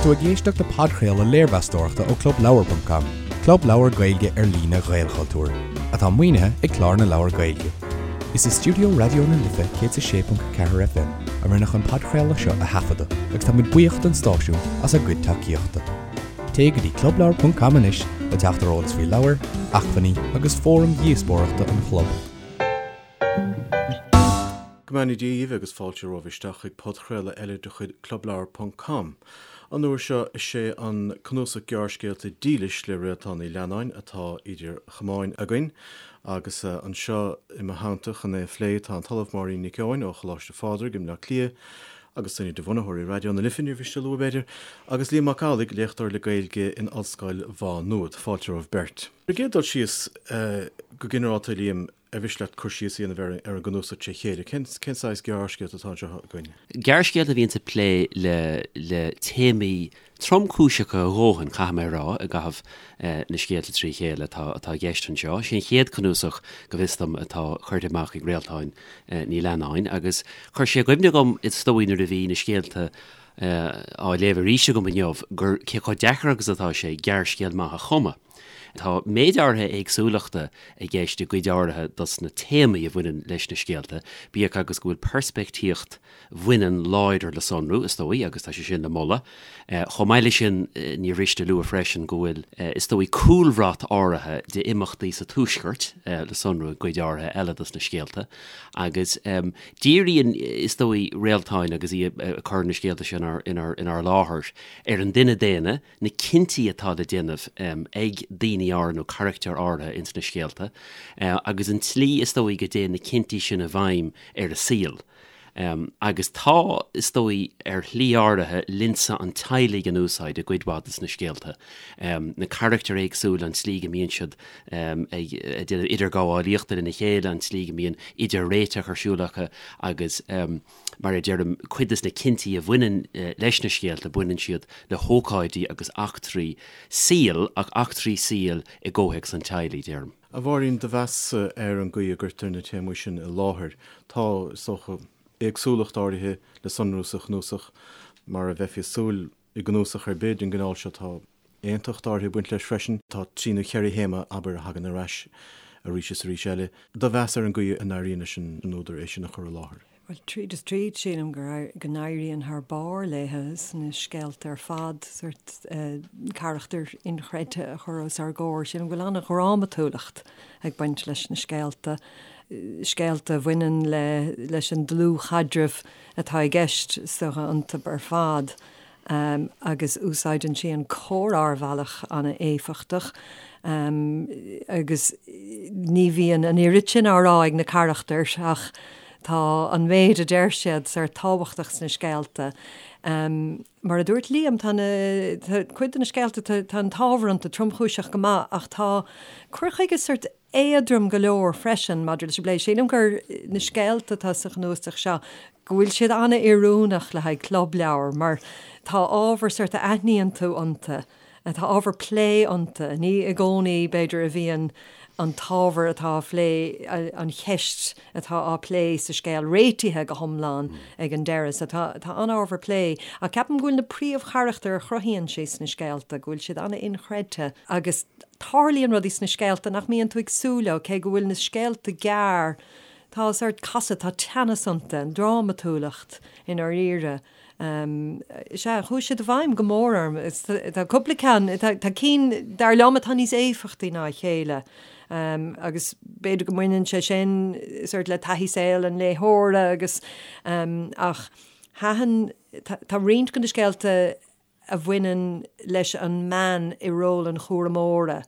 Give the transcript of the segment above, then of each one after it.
tú ag éisteacht le podchraoladh léirmheastóireachta ó ClubLeabhar.com, club leabhar Gaeilge ar líne Ghaelchultúir, atá maoinithe ag Clár na Leabhar Gaeilge. Is i stiúideo Raidió na Life 106.4 FM a rinneadh an podchraoladh seo a thaifeadadh agus tá muid buíoch don stáisiún as a gcuid tacaíochta. Téigh go dtí clubleabhar.com anois le teacht ar eolas faoi leabhair, acmhainní agus fóraim dhíospóireachta an chlub. Go mbeannaí Dia dhaoibh agus fáilte romhaibh isteach chuig podchraoladh eile de chuid Clubleabhar ponc com. An uair seo is é an cnuasach gearrscéalta Dílis le Réaltán Ní Leannáin atá idir chamáin againn agus anseo i mo theannta chun é a phlé tá an tOllamh Máirín Nic Eoin ó Choláiste Phádraig i mBleá Cliath agus duine de bhunaitheoirí Raidió na Life, níor mhiste a lua b'fhéidir, agus Liam Mac Amhlaigh, léachtóir le Gaeilge in Ollscoil Mhá Nuad. Fáilte romhaibh beirt. Ar an gcéad dul síos, go ginearálta, a Liam, ar mhiste leat cur síos a dhéanamh ar an gcnuasach tré chéile? Cén saghas gearrscéalta atá anseo againn? Gearrscéalta a bhíonns ag plé le téamaí tromchúiseacha a dhóthain, caithfidh mé a rá, i gcaitheamh na scéalta trí chéile atá i gceist anseo. Sé an chéad cnuasach, go bhfios dom, atá curtha amach ag Réaltán Ní Leannáin agus chuir sé i gcuimhne dhom, is dóigh, nuair a bhí na scéalta á léamh arís agam inniu, gur cé chomh deacair agus atá sé gearrscéal maith a chumadh. Tá méid áirithe éagsúlachta i gceist i gcuid áirithe dos na téamaí a bhaineann leis na scéalta, bíodh agus go bhfuil peirspictíocht bhaineann láidir le sonrú, is dóigh, agus tá sé sin le moladh. Chomh maith leis sin, níor mhiste a lua freisin go bhfuil, is dóigh, cúlbhrat áirithe d'imeachtaí sa Tuaisceart le sonrú i gcuid áirithe eile dos na scéalta, agus díríonn, is dóigh, Réaltán agus í ag cur na scéalta seo inár láthair, ar an duine daonna, na cinntí atá le déanamh ag daoine áirithe nó carachtair áirithe ins na scéalta agus an tslí is dóigh go dtéann na cinntí sin i bhfeidhm ar a saol. Agus tá, is dóigh, ar shlí áirithe, lionsa an teaghlaigh in úsáid i gcuid mhaith de na scéalta. Na carachtair éagsúla, an tslí go mbíonn siad ag déanamh idirghabhálaíochta lena chéile, an tslí go mbíonn idir-réiteach ar siúl acu agus, Mar a deirim, cuid de na cinntí a bhaineann leis na scéalta, baineann siad le hócáidí agus eachtraí saoil, ach eachtraí saoil i gcomhthéacs an teaghlaigh, deirim. A Mháirín, do mheas ar an gcaoi a gcuirtear na téamaí sin i láthair. Tá, is dócha, éagsúlacht áirithe le sonrú sa chnuasach, mar a bheifí ag súil i gcnuasach ar bith den gcineál seo. Tá aontacht áirithe ag baint leis freisin. Tá trí nó cheithre théama, abair, a thagann ar ais arís is arís eile. Do mheas ar an gcaoi a n-éiríonn leis an údar é sin a chur i láthair. Bhuel, tríd is tríd, sílim go n-éiríonn thar barr léithe sna scéalta ar fad, sórt carachtair inchreidte a chur os ár gcomhair. Sílim go bhfuil an-dhrámatúlacht ag baint leis na scéalta, scéalta a bhaineann le leis an dlúthchaidreamh atá i gceist is dócha iontu ar fad. agus úsáideann sí an comhrá ar bhealach an-éifeachtach agus ní bhíonn an oiread sin á rá ag na carachtair ach tá an méid a deir siad sórt tábhachtach sna scéalta. Mar a dúirt Liam, tá na, tá cuid de na scéalta, tá an t-ábhar iontu tromchúiseach go maith ach tá cur chuige sórt éadrom go leor freisin maidir leis an bplé. Sílim gur na scéalta atá sa chnuasach seo, go bhfuil siad an-oiriúnach le haghaidh clubleabhar mar tá ábhar sórt a aithníonn tú iontu, tá ábhar plé iontu. Ní i gcónaí, b'fhéidir, a bhíonn an t-ábhar atá á phlé, an cheist atá á plé sa scéal réitithe go hiomlán ag an deireadh. So tá tá an-ábhar plé. Ach ceapaim go bhfuil na príomhcharachtair a chruthaíonn sí sna scéalta, go bhfuil siad an-inchreidte agus Tarlaíonn rudaí sna scéalta nach mbíonn tú ag súil leo, cé go bhfuil na scéalta gearr, tá sórt casadh, tá teannas iontu, an drámatúlacht i ndáiríre. Sea, chuaigh siad i bhfeidhm go mór orm. Tá cúpla ceann, tá cinn, dar liom, atá níos éifeachtaí ná a chéile agus b'fhéidir go mbaineann sé sin sórt le taithí saoil an léitheora agus ach thaitin, tá roinnt de na scéalta a bhaineann leis an mbean i ról an chúramóra.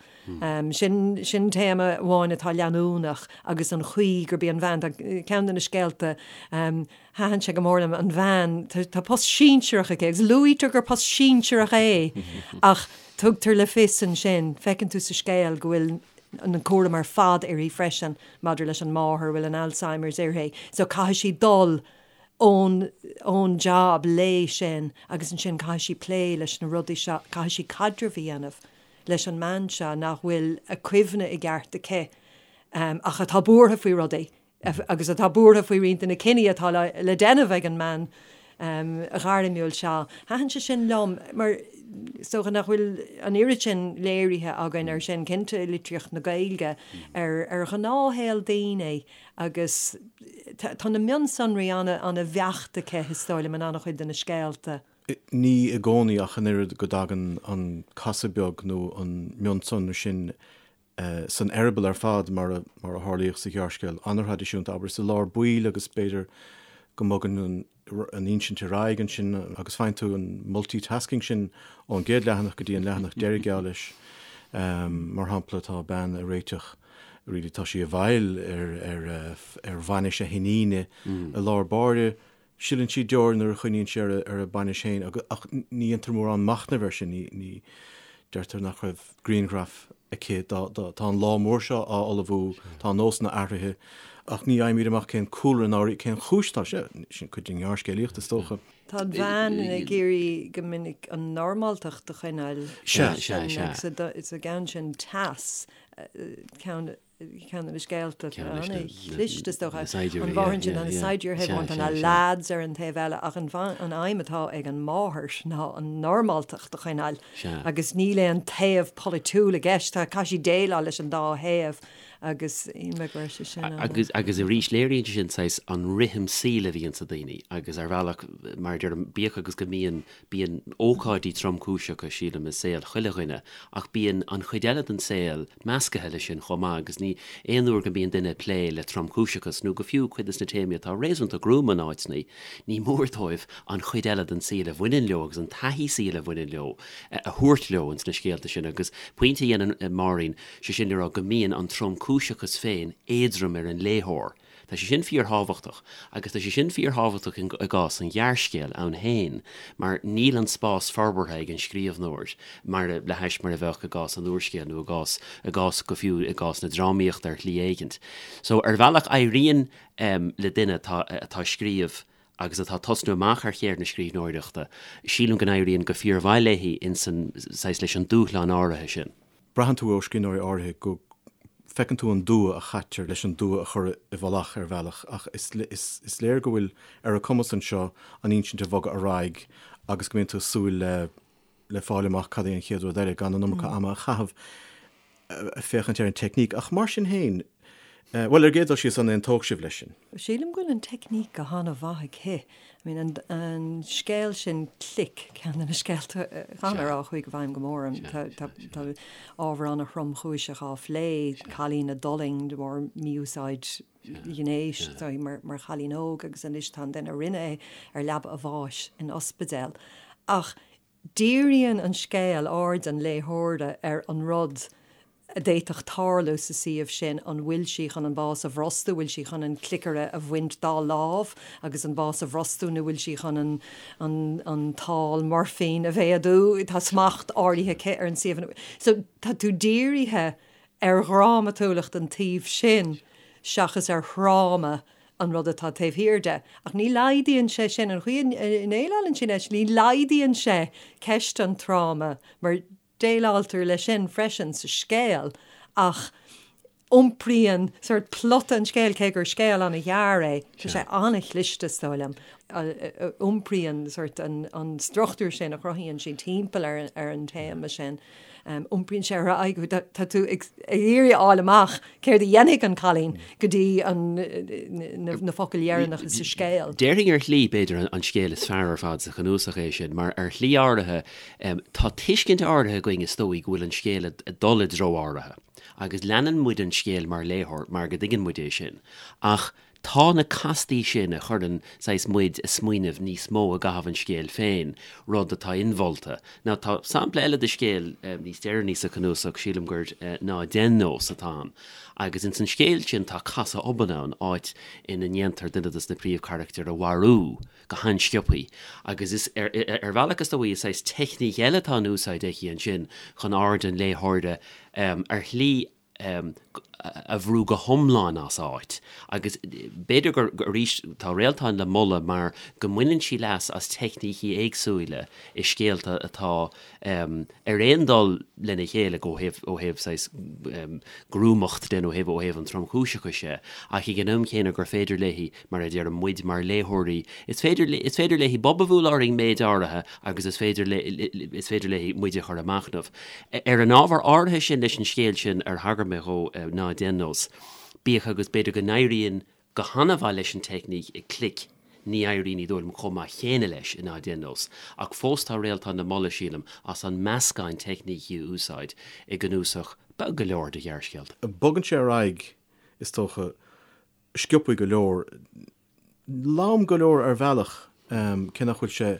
Sin, sin téama amháin atá leanúnach agus an chaoi gurb í an bhean, tá ceann de na scéalta, thaitin sé go mór liom, an bhean, tá post sinsearach aici agus luaitear gur post sinsearach é ach tugtar le fios ansin, feiceann tú sa scéal go bhfuil an cúram ar fad uirthi freisin maidir leis an máthair a bhfuil an Alzheimer's uirthi so caithfidh sí dul ón ón jab léi sin agus ansin caithfidh sí plé leis na rudaí seo, caithfidh sí caidreamh a dhéanamh leis an mbean seo nach bhfuil a cuimhne i gceart aici ach atá buartha faoi rudaí agus atá buartha faoi roinnt de na cinní atá le déanamh ag an mbean. ghairmiúil seo. Thaitin sé sin liom mar is dócha nach bhfuil an oiread sin léirithe againn ar sin, cinnte i litríocht na Gaeilge, ar ar ghnáthshaol daoine agus tá na mionsonraí an-bheacht aici, is dóigh liom, in an-chuid de na scéalta. Ní i gcónaí ach an oiread go dtagann an casadh beag nó an mionsonra sin san eireaball ar fad mar a mar a tharlaíodh sa ghearrscéal an-thraidisiúnta, abair, is i lár baill agus b'fhéidir go mbogann an an insint ar aghaidh ansin agus faigheann tú an multitasking sin ón gcéad leathanach go dtí an leathanach deiridh geall leis. Mar shampla, tá bean ag réiteach, really tá sí i bhfeighil ar ar ar bhainis a hiníne i lár báire, Sileann sí deoir nuair a chuimhníonn sí ar a bainis féin ach ní dhéantar mórán machnaimh air sin, ní deirtear nach raibh grianghraf aici dá, tá an lá mór seo á ullmhú, tá nósanna athraithe ach ní fhaighimid amach cén cúlra ná cén chúis atá sé, sin cuid den ghearrscéalaíocht is dócha. Tá an bhean ag iarraidh go minic an normáltacht a choinneáil. Sea, sea, sea. Sa gceann sin Teas, ceann ceann de na scéalta an-chliste is dócha. An mháthair ansin, tá na saighdiúirí ar thaobh amháin, tá na leaids ar an taobh eile ach an aidhm atá ag an máthair ná an normáltacht a choinneáil agus níl aon taobh polaitiúil i gceist, tá caithfidh sí déileáil leis an dá thaobh agus shíl mé go raibh sé sin an. Agus agus arís léiríonn sé sin saghas an rithim saoil a bhíonn sa daoine agus ar bhealach mar a deirim bíodh agus go mbíonn Bíonn ócáidí tromchúiseacha, sílim, i saol chuile dhuine, ach bíonn an chuid eile den saol meascaithe leis sin chomh maith agus ní aon uair go mbíonn duine ag plé le tromchúiseachas, nó go fiú cuid des na téamaí atá réasúnta gruama in áiteanna, ní mór dóibh an chuid eile den saol a bhaineann leo agus an taithí saoil a bhaineann leo a thabhairt leo ins na scéalta sin agus pointe a dhéanann Máirín, sé sin le rá go mbíonn an tromchúiseachas féin éadrom ar an léitheoir. Tá sé sin fíorthábhachtach, agus tá sé sin fíorthábhachtach i gcás an ghearrscéil ann féin, mar níl an spás forbartha ag an scríbhneoir mar le hais mar a bheadh i gcás an úrscéil nó i gcás, i gcás, go fiú i gcás na drámaíochta ar shlí éigint. So, ar bhealach éiríonn le duine atá, atá ag scríobh agus atá ag tosnú amach ar cheird na scríbhneoireachta, sílim go n-éiríonn go fíormhaith léi insan, saghas, leis an dúshlán áirithe sin. Braitheann tú ó scríbhneoirí áirithe go bhfeiceann tú an dua a chaitear leis an dua a chur i bhfolach ar bhealach ach is is léir go bhfuil ar a cumas anseo an insint a bhogadh ar aghaidh agus go mbíonn tú ag súil le le fáil amach cad é an chéad rud eile gan an iomarca ama a chaitheamh ag féachaint ar an teicníc. Ach mar sin féin, bhuel, ar an gcéad dul síos, an aontódh sibh leis sin? Sílim go bhfuil an teicníc go han-mhaith aici. I mean, an, an scéal sin Click, ceann de na scéalta, caithfidh mé a rá, a chuaigh i bhfeidhm go mór orm. Tá, tá, tá ábhar an-thromchúiseach á phlé, cailín a d'fhulaing de bharr mí-úsáid ghnéis mar, mar chailín óg agus anois tá an duine a rinne é ar leaba a bháis in ospidéal. Ach Díríonn an scéal aird an léitheora ar an rud a d'fhéadfadh tarlú sa suíomh sin, an bhfuil sí chun an bás a bhrostú, bhfuil sí chun an cliceaire a bhaint dá lámh agus an bás a bhrostú nó bhfuil sí chun an an an tál moirfín a mhéadú, tá smacht áirithe aici ar an suíomh. So tá tú dírithe ar dhrámatúlacht an tsuímh sin seachas ar thráma an rud atá taobh thiar de. Ach ní laghdaíonn sé sin, an chaoi a ndéileálann sí leis, ní laghdaíonn sé ceist an tráma, mar déileáiltear leis sin freisin sa scéal, ach iompraíonn sórt plota an scéil, cé gur scéal an-ghearr é, tá sé an-chliste, is dóigh liom, iompraíonn sórt an struchtúr sin a chruthaíonn sí timpeall ar an téama sin. Iompraíonn sé ar aghaidh, tá tú ag iarraidh a fháil amach céard a dhéanfaidh an cailín go dtí na focail dheireanacha sa scéal. Déarfainn ar shlí, b'fhéidir, an scéal is fearr ar fad sa chnuasach é sin, mar ar shlí áirithe, tá tuiscint áirithe againn is dóigh go bhfuil an scéal ag dul i dtreo áirithe, agus leanann muid an scéal mar léitheoir mar go dtuigeann muid é sin, ach Tá na castaí sin a chuireann saghas muid ag smaoineamh níos mó i gcaitheamh an scéil féin, rud atá inmholta. Now tá sampla eile de scéal níos deireanaí sa chnuasach, sílim gur Ná Dein Nós atá ann, agus ins an scéal sin tá casadh obann ann, áit ina ndéantar duine dos na príomhcharachtair a mharú go han-sciobthaí, agus is ar ar bhealach is dóigh is saghas teicníc eile atá in úsáid aici ansin chun aird an léitheora ar shlí. a bhrú go hiomlán as áit. Agus b'fhéidir gur, arís, tá Réaltán le moladh mar go mbaineann sí leas as teicnící éagsúla i scéalta atá ar aon dul lena chéile ó thaobh, ó thaobh saghas gruamacht de nó ó thaobh, ó thaobh an tromchúiseachais de, ach ag an am chéanna gur féidir léi, mar a deirim, muid mar léitheoirí, is féidir, is féidir léi bob a bhualadh orainn méid áirithe agus is féidir, is féidir léi muid a chur ag machnamh. Ar an ábhar áirithe sin leis an scéal sin ar thagair mé dhó, Ná Déan Nós, bíodh agus b'fhéidir go n-éiríonn go han-mhaith leis an teicníc i Clic, ní éiríonn, ní dóigh liom, chomh maith chéanna leis i Ná Déan Nós. Ach fós tá Réaltán le moladh, sílim, as an meascán teicnící a úsáid i gcnuasach beag go leor de ghearrscéalta. Bogann sé ar aghaidh, is dócha, sciobthaí go leor, lom go leor ar bhealach, cé nach bhfuil sé,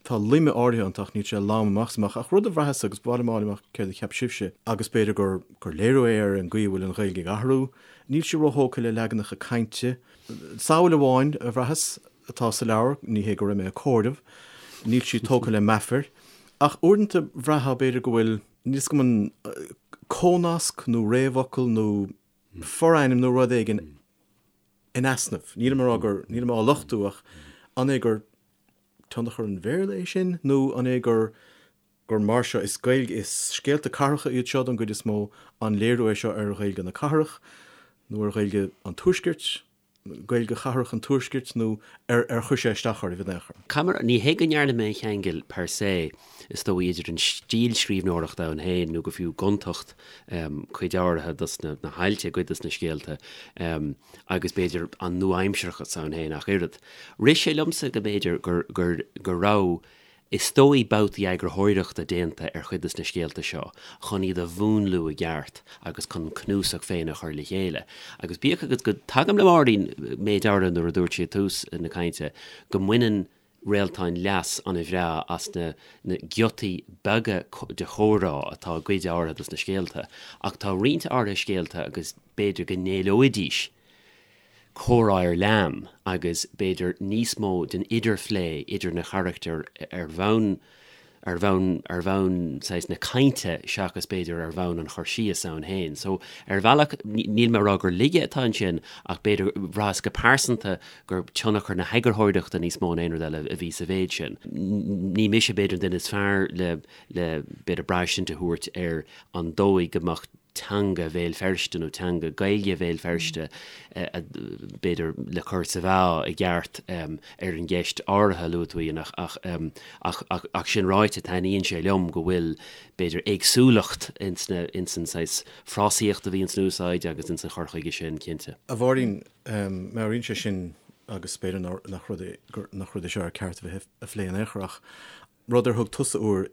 tá loime áirithe iontu ach níl sé lom amach is amach. Ach rud a bhraitheas, agus ba mhaith liom a fháil amach céard a cheap sibhse, agus b'fhéidir gur gur léiriú é ar an gcaoi a bhfuil an Ghaeilge ag athrú, níl sí róthógtha le leaganacha cainte. Samhail amháin a bhraitheas atá sa leabhar, ní hé go raibh mé ag comhaireamh, níl sí tógtha le meafair, ach uaireanta bhraithfeá b'fhéidir go bhfuil, níl 'fhios agam an comhnasc nó réamhfhocal nó forainm nó rud éigin in easnamh. Nílim ag rá gur, nílim á lochtú ach an é gur tionchar an Bhéarla é sin nó an é gur, gur mar seo, is Gaeilge, is scéalta cathracha iad seo don gcuid is mó, an léiriú é seo ar Ghaeilge na cathrach nó ar Ghaeilge an Tuaiscirt? Gaeilge chathrach an Tuaiscirt nó ar ar chuir sé isteach oraibh in aon chor? Caithfidh mé, ní hé go ndearna mé an cheangal per se, is dóigh, idir an stíl scríbhneoireachta ann féin nó go fiú gontacht cuid áirithe dos na hailt i gcuid dos na scéalta agus b'fhéidir an nua-aimsearachas ann féin ach oiread. Rith sé liomsa go mb'fhéidir gur gur go raibh Is dóigh babhtaí eagarthóireachta déanta ar chuid de na scéalta seo chun iad a mhúnlú i gceart agus chun an cnuasach féin a chur le chéile. Agus bíodh agus go dtagaim le Máirín méid áirithe nuair a dúirt sí ag tús na cainte go mbaineann Réaltán leas an-bhreá as na na giotaí beaga de chomhrá atá i gcuid áirithe de na scéalta ach tá roinnt áirithe scéalta agus b'fhéidir go n-éileoidís comhrá ar lean agus b'fhéidir níos mó den idirphlé idir na carachtair ar bhonn ar bhonn ar bhonn saghas na cainte seachas b'fhéidir ar bhonn an chur síos ann féin. So ar bhealach níl mé ag rá gur laige atá ansin ach b'fhéidir bhraitheas go pearsanta gur tionchar na heagarthóireachta níos mó ná aon rud eile a bhí sa mhéid sin. Ní mise b'fhéidir an duine is fearr le le b'fhéidir braistint a thabhairt ar an dóigh go mbeadh teanga Bhéal Feirste nó teanga Gaeilge Bhéal Feirste, b'fhéidir, le cur sa mheá i gceart ar an gceist áirithe a luaigh tú, Ian, ach, ach, ach sin ráite, taitníonn sé liom go bhfuil, b'fhéidir, éagsúlacht ins na, ins an saghas frásaíocht a bhíonn san úsáid agus ins an chur chuige sin, cinnte. A Mháirín, meabhraíonn sé sin, agus b'fhéidir nach rud é, nach rud é seo ar ceart a bheith á phlé in aon chor, ach rud ar thug tusa uair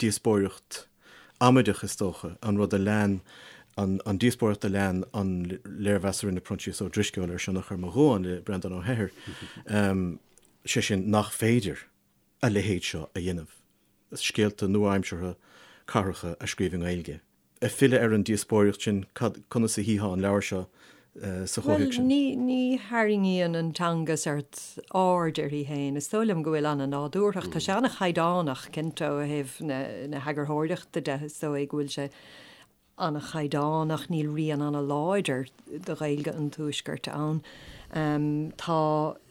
díospóireacht amaideach, is dócha, an rud a lean, an díospóireacht a lean an léirmheas a rinne Proinsias Ó Drisceoil ar Sionnach ar mo Dhuán le Breandán Ó hEithir, sé sin nach féidir a leithéid seo a dhéanamh, scéalta nua-aimseartha cathracha a scríobh i nGaeilge. Ag filleadh ar an díospóireacht sin, cad, conas a tchítheá an leabhar seo sa chomhthéacs sin? Bhuel, ní, ní tharraingíonn an teanga sórt aird uirthi féin. Is dóigh liom go bhfuil an-nádúrthacht. Tá sé an-chaighdeánach, cinnte, ó thaobh na, na heagarthóireachta de, is dóigh go bhfuil sé an-chaighdeánach, níl rian an-láidir de Ghaeilge an Tuaiscirt ann. Tá,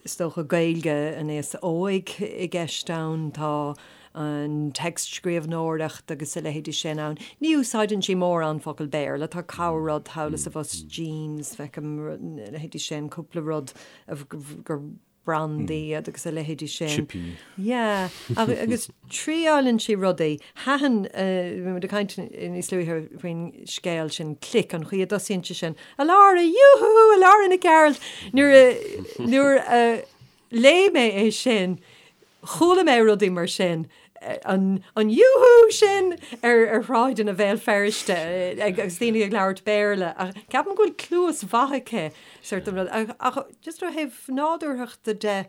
is dócha, Gaeilge an aosa óig i gceist ann, tá an téacs-scríbhneoireacht agus a leithéidí sin ann. Ní úsáideann sí mórán focal Béarla, tá corr-rud thall is abhus, jeans, feicim, a leithéidí sin, cúpla rud gur brandaí iad agus a leithéidí sin. Chipí. Yeah, agus triáileann sí rudaí. Thaitin, bhí muid ag caint níos luaithe faoin scéal sin, Click, an chaoi a dtosaíonn sé sin, A Lára, yoo-hoo, a Lára Nic Gearailt! Nuair a, nuair a léigh mé é sin, chuala mé rudaí mar sin, an yoo-hoo sin ar ar shráideanna Bhéal Feirste agus daoine ag labhairt Béarla. Ach ceapaim go bhfuil cluas mhaith aici sórt an rud. Ach just ó thaobh nádúrthachta de,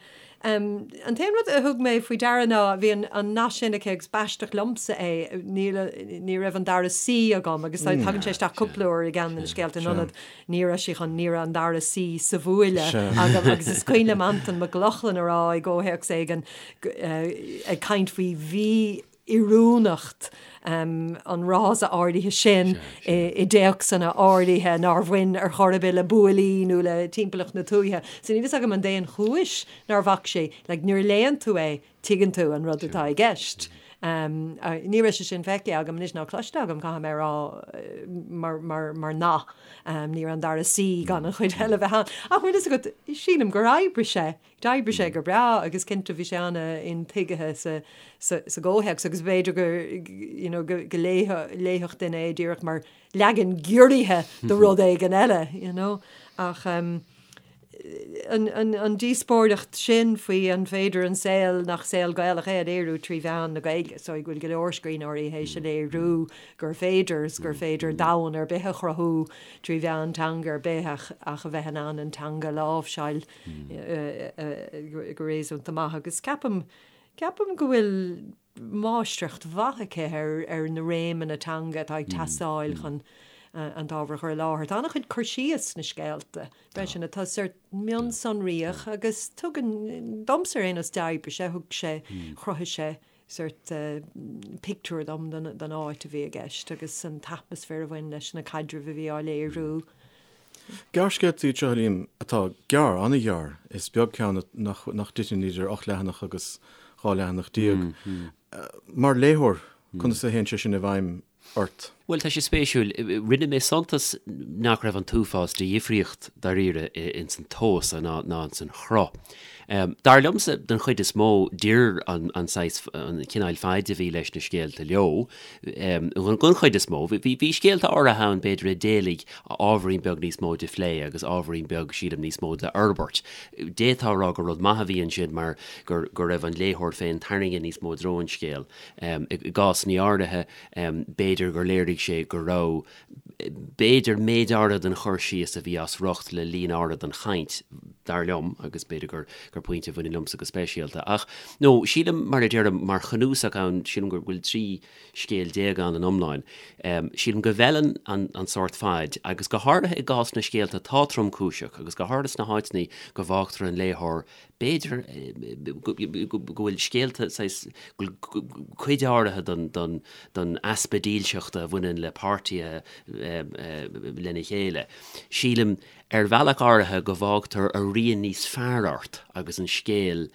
an t-aon rud a thug mé faoi deara ná bhí an nath sin aici agus b'aisteach liomsa é, níl, ní raibh an dara C agam agus tagann sé isteach cúpla uair i gceann de na scéalta in ionad Ní raibh sí chun, ní raibh an dara C sa bhuaile agam agus is cuimhin liom Antain Mac Lochlainn a rá i gcomhthéacs éigin ag caint faoi mhí. oiriúnacht an fhrása áirithe sin i dtéacsanna áirithe nár bhain ar chor ar bith le buailí nó le timpeallacht na tuaithe. So níl fhios agam an é an chúis nár bhac sé, like nuair a léann tú é, tuigeann tú an rud atá i gceist. Ní raibh sé sin feicthe agam anois ná cloiste agam, caithfidh mé a rá, mar, mar, mar nath. Ní raibh an dara suí gan an chuid eile bheith ann. Ach bhfuil fhios agat, sílim gur oibrigh sé. D'oibrigh sé go breá agus cinnte bhí sé an-intuigthe sa, sa, sa gcomhthéacs agus b'fhéidir go, you know, go, go léifeadh, léifeadh duine é díreach mar leagan giorraithe de rud éigin eile, you know. Ach an, an, an díospóireacht sin faoi an féidir an saol nach saol Gaelach é a léiriú trí mheán na Gaeilge, so go bhfuil go leor scríbhneoirí théis a léiriú gur féidir is gur féidir domhan ar bith a chruthú trí mheán teanga ar bith ach, ach a bheith in ann an teanga a láimhseáil go réasúnta maith agus ceapaim, ceapaim go bhfuil máistreacht mhaith aici ar, ar na réimeanna teanga atá ag teastáil chun an t-ábhar a chur i láthair. Tá an-chuid cur síos sna scéalta freisin atá sórt mionsonraíoch agus tugann, domsa ar aon nós d'oibrigh sé, thug sé, chruthaigh sé sórt pictiúr dom den áit a bhí i gceist agus an t-atmaisféar a bhain leis na caidrimh a bhí á léiriú. Gearrscéalta iad seo, a Liam, atá gearr, an-ghearr. Is beag ceann nach dtiteann idir 8 leathanach agus 12 leathanach. Mar léitheoir, conas a théann sé sin i bhfeidhm ort? Bhuel, tá sé spéisiúil. Rinne mé suntas nach raibh an t-uafás de dhifríocht dáiríre ins an tomhas ná ins an chruth. Dar liomsa, den chuid is mó, d'oir an saghas, an cineál faid a bhí leis na scéalta leo. Den chuid is mó. Bhí scéalta áirithe ann, b'fhéidir, a d'éiligh ábhairín beag níos mó de phlé agus ábhairín beag, sílim, níos mó de fhorbairt. D'fhéadfá a rá gur rud maith a bhí ansin mar go raibh an léitheoir féin tarraingthe níos mó i dtreo an scéil. I gcásanna áirithe, b'fhéidir gur léirigh sé go raibh, b'fhéidir, méid áirithe den chur síos a bhí as riocht le líon áirithe den chaint, dar liom, agus b'fhéidir gur gur pointe a bhaineann liomsa go speisialta. Ach, no, sílim, mar a deirim, mar chnuasach ann, sílim go bhfuil 13 scéal ann in iomlán, sílim go bhfeileann an an sórt faid, agus go háirithe i gcás na scéalta atá tromchúiseach, agus go háirithe sna háiteanna go bhfágtar an léitheoir B'fhéidir go bhfuil scéalta saghas, go bhfuil cuid áirithe den easpa dílseachta a bhaineann le páirtithe lena chéile. Sílim, ar bhealach áirithe, go bhfágtar a rian níos fearr ort agus an scéal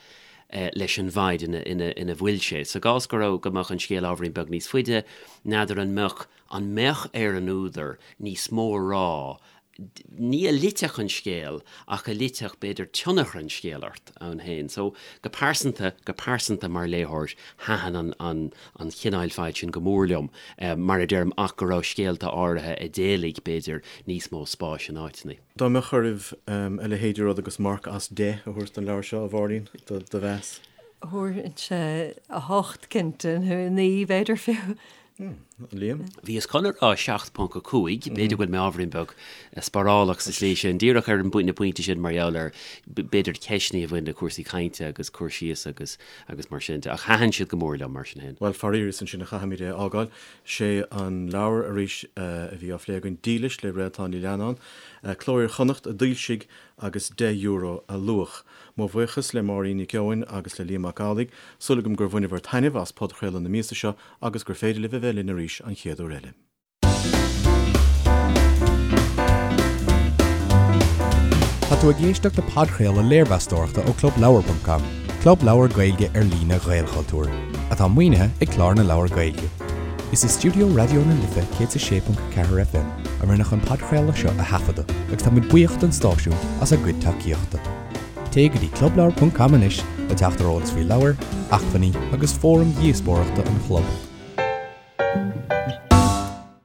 leis an bhfaid ina bhfuil sé. Sa gcás go raibh, go mbeadh an scéal ábhairín beag níos faide, n'fheadar an mbeadh, an mbeadh ar an údar níos mó a rá ní a loitfeadh an scéal ach a loitfeadh, b'fhéidir, tionchar an scéil ort ann féin. So, go pearsanta, go pearsanta mar léitheoir, thaitin an, an, an chineáil faid sin go mór liom, mar a deirim, ach go raibh scéalta áirithe a d'éiligh, b'fhéidir, níos mó spáis in áiteanna. Dá mbeadh oraibh a leithéid de rud agus marc as 10 a thabhairt don leabhar seo, a Mháirín, do mheas? Thabharfainnse 8 cinnte, nó 9 b'fhéidir fiú. Liam? Bhíos chun a rá 7.5, b'fhéidir go bhfuil mé ábhairín beag sparálach sa tslí sin, díreach ar an na pointí sin mar gheall ar b'fhéidir ceisteanna a bhain le cúrsaí cainte agus cur síos agus agus mar sin de. Ach thaitin siad go mór liom mar sin féin. Bhuel, faraor, is ansin a chaithfimid é a fhágáil. Sé an leabhar arís a bhí á phlé againn, Dílis le Réaltán Ní Leannáin, Cló Iar-Chonnacht a d'fhoilsigh agus €10 a luach. Mo bhuíochas le Máirín Nic Eoin agus le Liam Mac Amhlaigh. Súil agam gur bhaineabhair taitneamh as podchraoladh na míosa seo agus gur féidir libh a bheith linn arís an chéad uair eile. Tá tú ag éisteacht le podchraoladh léirmheastóireachta ó ClubLeabhar.com, club leabhar Gaeilge ar líne Ghaelchultúir, atá maoinithe ag Clár na Leabhar Gaeilge. Is i stiúideo Raidió na Life 106.4 FM a rinneadh an podchraoladh seo a thaifeadadh agus táimid buíoch don stáisiún as a gcuid tacaíochta. Téigh go dtí clubleabhar.com anois le teacht ar eolas faoi leabhair, acmhainní agus fóraim dhíospóireachta an chlub.